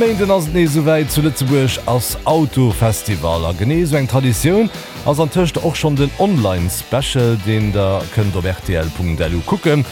Méinden ass et nees esouwäit, zu Lëtzebuerg ass Autofestival. A genee esou eng Traditioun ass antëscht och schonn den Online-Special, deen der kënnt op rtl.lu kucken.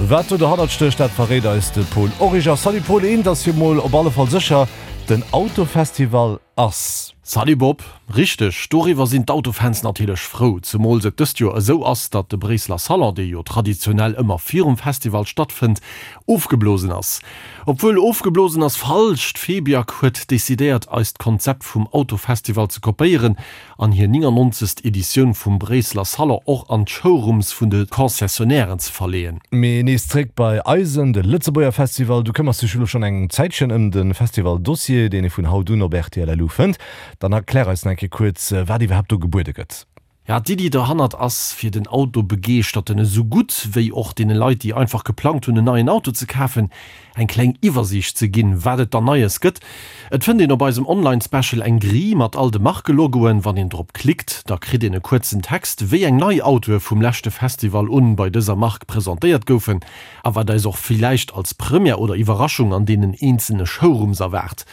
Wat do dohannert stécht, dat verréit eis de Paul Origer. Salut Paul, eent ass jo mol op alle Fall sécher, den Autofestival ass. Salut Bob, richteg, doriwwer sinn d'Autofans natierlech frou, zemools et dëst Joer esou ass, datt de Bréisseler Salon, dee jo traditionell ëmmer virum Festival stattfënnt, ofgeblosen ass. Obwuel, ofgeblosen ass falsch, d'Febiac huet decidéiert eist Konzept vum Autofestival ze kopéieren an hir 99. Editioun vum Bréisseler Salon och an d'Showrooms vun de Concessionnairen ze verleeën. Mee nees zréck bei eisen, de Lëtzebuerger Festival. Du këmmers dech elo schonn eng Zäitchen ëm de Festival-Dossier, deen ee vun haut un op rtl.lu fënnt. Dann erklär eis nach eng Kéier kuerz, wat iwwerhaapt do gebuede gëtt. Ja, d'Iddi dohannert ass, fir den Autobegeeschterten esou gutt wéi och deene Leit, déi einfach geplangt hunn en neien Auto ze kafen, eng kleng Iwwersiicht ze ginn, wat et dann Neies gëtt. Et fënnt een op eisem Online-Special eng Grille mat all de Markelogoen. Wann een drop klickt, da kritt een e kuerzen Text, wéi eng nei Autoe vum leschte Festival un bei dëser Mark presentéiert goufen a wat eis och villäicht als Première oder Iwwerraschung an deenen eenzelne Showrooms erwaart.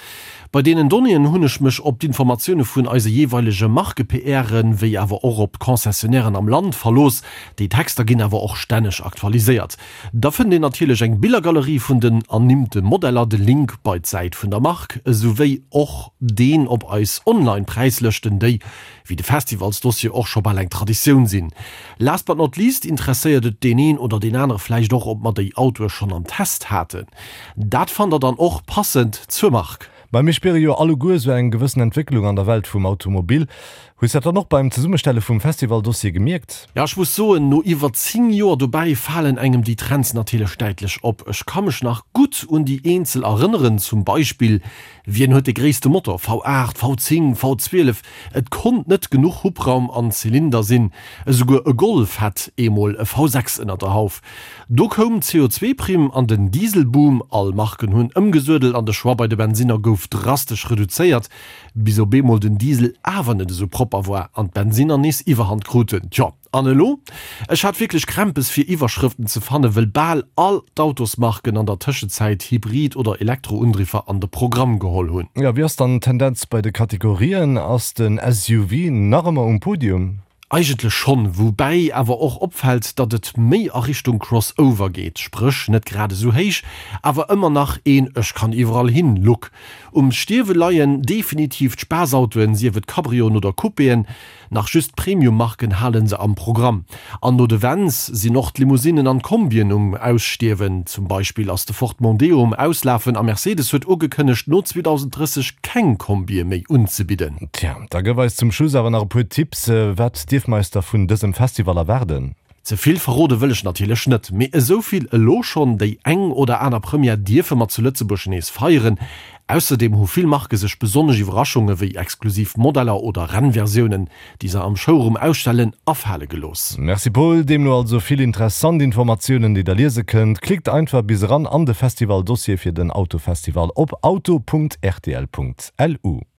Bei deenen Donnéeën hunn ech mech op d'Informatioune vun eise jeeweilege Marke-PRen, wéi awer och op d'Concessionnairen am Land verlooss. Déi Texter ginn awer och stänneg aktualiséiert. Da fënnt een natierlech eng Billergalerie vun den ernimmte Modeller, de Link bei d'Säit vun der Mark, esouwéi och deen op eis Online-Präislëschten, déi, wéi de Festivalsdossier, och scho bal eng Traditioun sinn. Last but not least interesséiert et deen een oder deen anere vläicht och, ob mer déi Autoe schonn am Test haten. Dat fannt der dann och passend zur Mark. Mä mir spiere jo alleguer esou eng gewëssen Entwécklung an der Welt vum Automobil. Hues dat dann och beim Zesummestelle vum Festivaldossier gemierkt? Jo, ech muss soen, no iwwer 10 Joer dobäi falen engem déi Trends natierlech däitlech op. Ech ka mech nach gutt un déi eenzel erënneren, zum Beispill Wien huet de gréisste Motor, V8, V10, V12? Et konnt net genuch Hubraum an Zylinder sinn. Esouguer e Golf hat eemol e V6 ënner der Hauf. Do koum d'CO2-Primm an den Dieselboom, all Marken hunn ëmgesuedelt an de Choix bei de Bensinner gouf drastesch reduzéiert, bis op eemol den Diesel awer net esou propper war an d'Bensinner nees Iwwerhand kruten. Tjo, an elo? Ech hat wierklech Krämpes fir Iwwerschrëften ze fannen, wëll bal all d'Autosmarken an der Tëschezäit Hybrid oder Elektroundriffer an de Programm geholl hunn. Jo, wéi ass dann d'Tendenz bei de Kategorien? Ass den SUV nach ëmmer um Podium? Eigentlech schonn, woubäi awer och opfält, datt et méi a Richtung Crossover geet, spréch net grad esou héich, awer ëmmer nach een Ech kann iwwerall hin Look. Um Stierwe leien definitiv d'Spaassautoen, sief et Cabrioen oder Coupéen. Nach just d'Premium-Marken hale se am Programm. An no de Vans sinn och d'Limousinnen an d'Kombien um Ausstierwen. Zum Beispill ass de Ford Mondeo um Auslafen a Mercedes huet ugekënnegt, no 2030 keng Kombie méi unzebidden. Tja, da gëff eis zum Schluss awer nach e puer Tipps. Wat dierf mer eis da vun dësem Festival erwaarden? Ze vill verrode wëll ech natierlech net, mee esou vill elo schonn, déi eng oder aner Première dierfe mer zu Lëtzebuerg nees feieren. Ausserdeem hu vill Marke sech besonnesch Iwwerraschunge wéi exklusiv Modeller oder Rennversiounen, déi se am Showroom ausstellen, afale gelooss. Merci Paul, deemno also vill interessant Informatiounen déi der liese kënnt. Klickt einfach bis eran an de Festival Dossier fir den Autofestival op auto.rtl.lu.